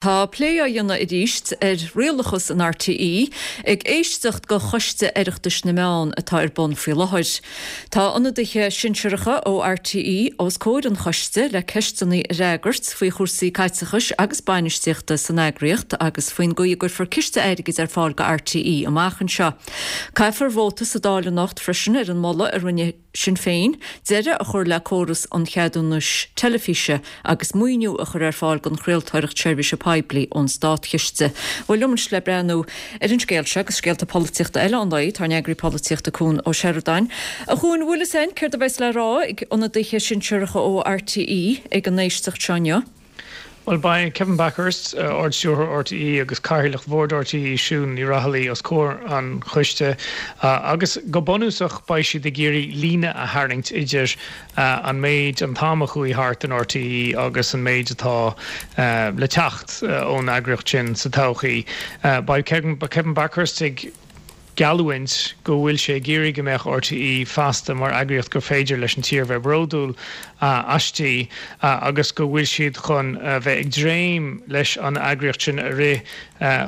Tá plé á dhéanamh arís ar rialachas in RTÉ ag éisteacht de Choiste Oireachtais na Meán atá ar bun faoi láthair. Tá ionadaithe sinsearacha ó RTÉ os comhair an choiste le ceisteanna a fhreagairt faoi chúrsaí caiteachais agus bainistíochta san eagraíocht agus faoin gcaoi a gcuirfear ciste airgid ar fáil do RTÉ amach anseo. Caithfear vóta sa Dáil anocht freisin ar an moladh a rinne Sinn Féin deireadh a chur le córas an cheadúnais teilifíse agus maoiniú a chur ar fáil don chraoltóireacht seirbhíse poiblí ón státchiste. Bhuel, liom anois le breathnú ar an scéal seo agus scéalta polaitíochta eile an lae, tá ár n-eagraí polaitíochta Cuan Ó Seireadáin. A Chuain, bhfuil fhios a'inn céard a bheas le rá ag ionadaithe sinsearacha ó RTÉ ag an éisteacht seo inniu? Bhuel, beidh Kevin Bakhurst, Ard-Stiúrthóir RTÉ agus Cathaoirleach Bhord RTÉ, Siún Ní Raghallaigh os comhair an choiste agus go bunúsach beidh siad ag iarraidh líne a tharraingt idir an méid, an t-am a chuaigh thart in RTÉ agus an méid atá le teacht ón eagraíocht sin sa todhchaí. Beidh Kevin Bakhurst ag. geallúint go bhfuil sé ag iarraidh go mbeadh RTÉ feasta mar eagraíocht gur féidir leis an tír bheith bródúil aisti agus go bhfuil siad chun a bheith ag dréim leis an eagraíocht sin a rith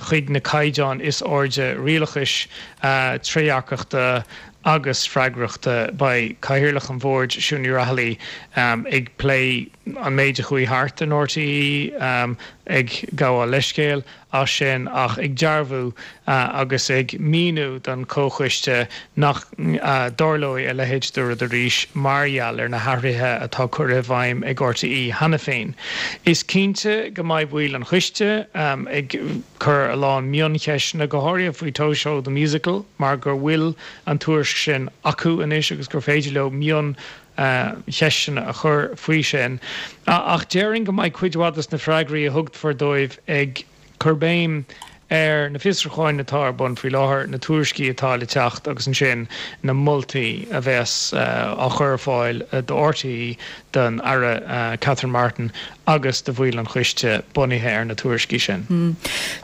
chuig na caighdeáin is airde rialachais, trédhearcachta agus freagrachta. Beidh Cathaoirleach an Bhoird, Siún Ní Raghallaigh, ag plé an méid a chuaigh thart in RTÉ, ag gabháil leithscéil as sin ach ag dearbhú agus ag míniú don chomhchoiste nach dtarlóidh a leithéid de rud arís mar gheall ar na hathruithe atá curtha i bhfeidhm ag RTÉ cheana féin. Is cinnte go mbeidh baill an choiste ag cur a lán mioncheisteanna, go háirithe faoi Toy Show the Musical mar go bhfuil an tuairisc sin acu anois agus gur féidir leo mion cheisteanna a chur faoi sin. Ach déarfainn go mbeidh cuid mhaith de na freagraí a thugfar dóibh ag cur béim ar na fiosrúcháin atá ar bun faoi láthair, na tuairiscí atá le teacht agus ansin na moltaí a bheas á chur ar fáil do RTÉ, don Aire Catherine Martin agus do bhaill an choiste bunaithe ar na tuairiscí sin.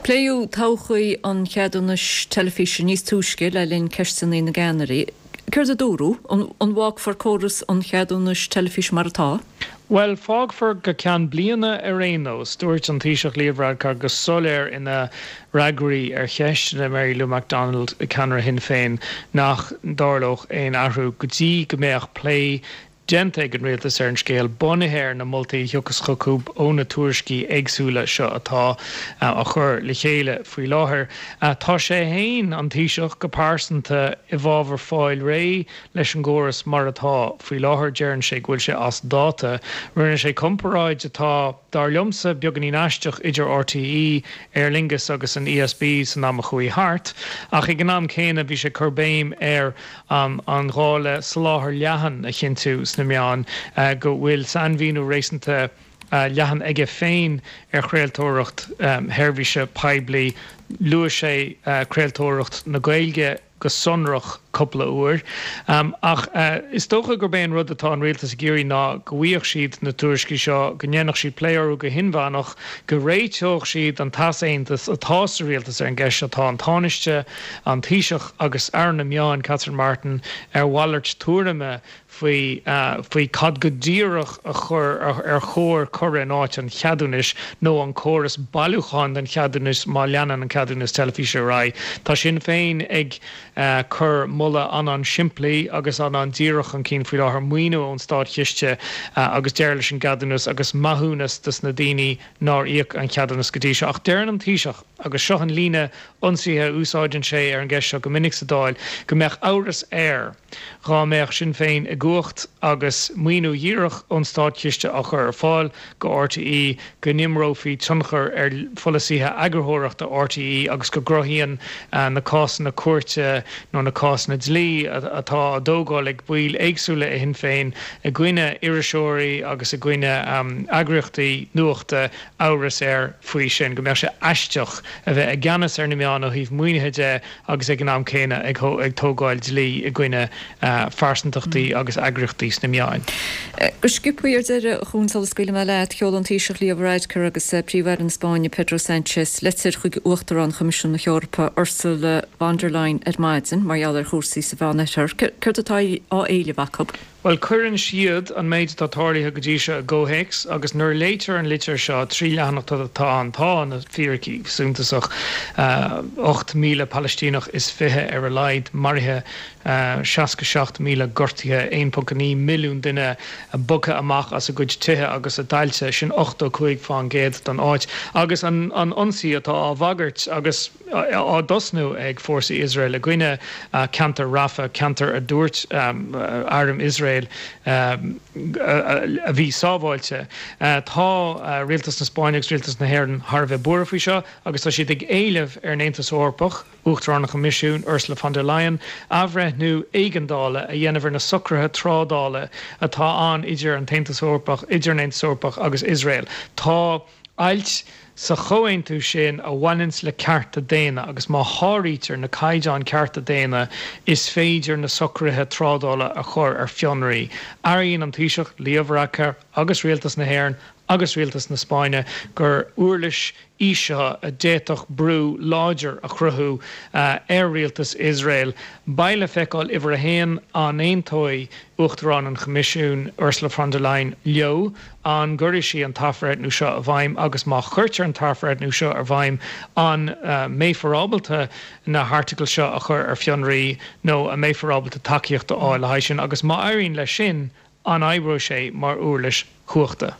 Pléadh todhchaí an cheadúnais teilifíse níos túisce le linn Ceisteanna na gCeannairí. Céard a dúradh? An bhfágfar córas an cheadúnais teilifíse mar atá? Bhuel, fágfar go ceann bliana ar aon nós. Dúirt an Taoiseach Leo Varadkar go soiléir ina fhreagraí ar cheisteanna Mary Lou McDonald, ceannaire Shinn Féin, nach dtarlódh aon athrú go dtí go mbeadh plé déanta ag an Rialtas ar an scéal, bunaithe ar na moltaí a thiocfas chucu ó na tuairiscí éagsúla seo atá á chur le chéile faoi láthair. Tá sé féin, an Taoiseach, go pearsanta i bhfabhar fáil réidh leis an gcóras mar atá faoi láthair. Deireann sé go bhfuil sé as dáta. Rinne sé comparáid atá, dar liomsa, beagáinín aisteach idir RTÉ, Aer Lingus agus an ESB san am a chuaigh thart, ach ag an am céanna bhí sé ag cur béim ar an ghá le soláthar leathan a chinntiú sna meáin, go bhfuil sainmhíniú réasúnta leathan aige féin ar chraoltóireacht sheirbhíse poiblí. Luaigh sé craoltóireacht na Gaeilge go sonrach cúpla uair. Ach is dócha gurb é an rud atá an rialtas ag iarraidh ná go bhfaigheadh siad na tuairiscí seo, go ndéanfadh siad plé orthu go hinmheánach, go réiteodh siad an t-easaontas atá sa rialtas ar an gceist seo. Tá an Tánaiste, an Taoiseach agus Aire na Meán, Catherine Martin, ar mhalairt tuairime faoi faoi cad go díreach a chur ar chóir cur in áit an cheadúnais nó an córas bailiúcháin don cheadúnas má leanann an ceadúnas teilifíse ar aghaidh. Tá Sinn Féin ag cur moladh an-an-simplí agus an-an-díreach chun cinn faoi láthair, maoiniú ón státchiste agus deireadh leis an gceadúnas agus maithiúnas dos na daoine nár íoc an ceadúnas go dtí seo. Ach deireann an Taoiseach, agus seo an líne ionsaithe a úsáideann sé ar an gceist seo go minic sa Dáil, go mbeadh amhras air dhá mbeadh Sinn Féin i gcumhacht agus maoiniú dhíreach ón státchiste á chur ar fáil go RTÉ go n-imreofaí tionchar ar pholasaithe eagarthóireachta RTÉ agus go gcruthaíonn na cásanna cúirte nó na cásanna dlí atá á dtógáil ag baill éagsúla i Shinn Féin i gcoinne iriseoirí agus i gcoinne eagraíochtaí nuachta amhras air faoi sin, go mbeadh sé aisteach a bheith i gceannas ar na meáin ó thaobh maoinithe de agus ag an am céanna ag tógáil dlí i gcoinne phearsantachtaí agus eagraíochtaí sna meáin. Go sciobtha ar deireadh, a Chuain, sula scaoilfidh mé leat, sheol an Taoiseach Leo Varadkar agus Príomh-Aire na Spáinne Pedro Sánchez litir chuig Uachtarán Choimisiún na hEorpa Ursula von der Leyen ar maidin mar gheall ar chúrsaí sa Mheánoirthear. Céard atá á éileamh acu? Bhuel, cuireann siad an méid atá tarlaithe go dtí seo i gcomhthéacs agus nuair a léitear an litir seo, 3 leathanach atá ann, tá na fíricí suntasach, 8,000 Palaistíneach is 20 ar a laghad maraithe, 67,000 gortaithe, 1.9 milliún duine bogtha amach as a gcuid tithe agus a dtailte, sin 85% den áit. Agus an ionsaí atá á bhagairt agus á dtosnú ag fórsaí Iosrael i gcoinne ceantar Rafah, ceantar a dúirt arm Iosrael a bhí sábháilte. Tá Rialtas na Spáinne agus Rialtas na hÉireann thar a bheith buartha faoi seo agus tá siad ag éileamh ar an Aontas Eorpach, Uachtarán an Choimisiúin, Ursula von der Leyen, athbhreithniú éigeandála a dhéanamh ar na socruithe trádála atá ann idir an tAontas Eorpach, idir an Aontas Eorpach agus Iosrael. Tá ailt sa chomhaontú sin a bhaineanns le cearta daonna agus má sháraítear na caighdeáin cearta daonna is féidir na socruithe trádála a chur ar fionraí. Airíonn an Taoiseach, Leo Varadkar agus Rialtas na hÉireann agus Rialtas na Spáinne gur uirlis í seo a d'fhéadfadh brú láidir a chruthú ar rialtas Iosrael. Beidh le feiceáil, uimhir a haon, an aontóidh Uachtarán an Choimisiúin, Ursula von der Leyen, leo, an gcuirfidh sí an t-athbhreithniú seo i bhfeidhm agus má chuirtear an t-athbhreithniú seo i bhfeidhm, an mbeifear ábalta na hairteagail seo a chur ar fionraí nó an mbeifear ábalta tacaíocht a fháil le haghaidh sin agus má éiríonn leis sin, an oibreoidh sé mar uirlis chumhachta?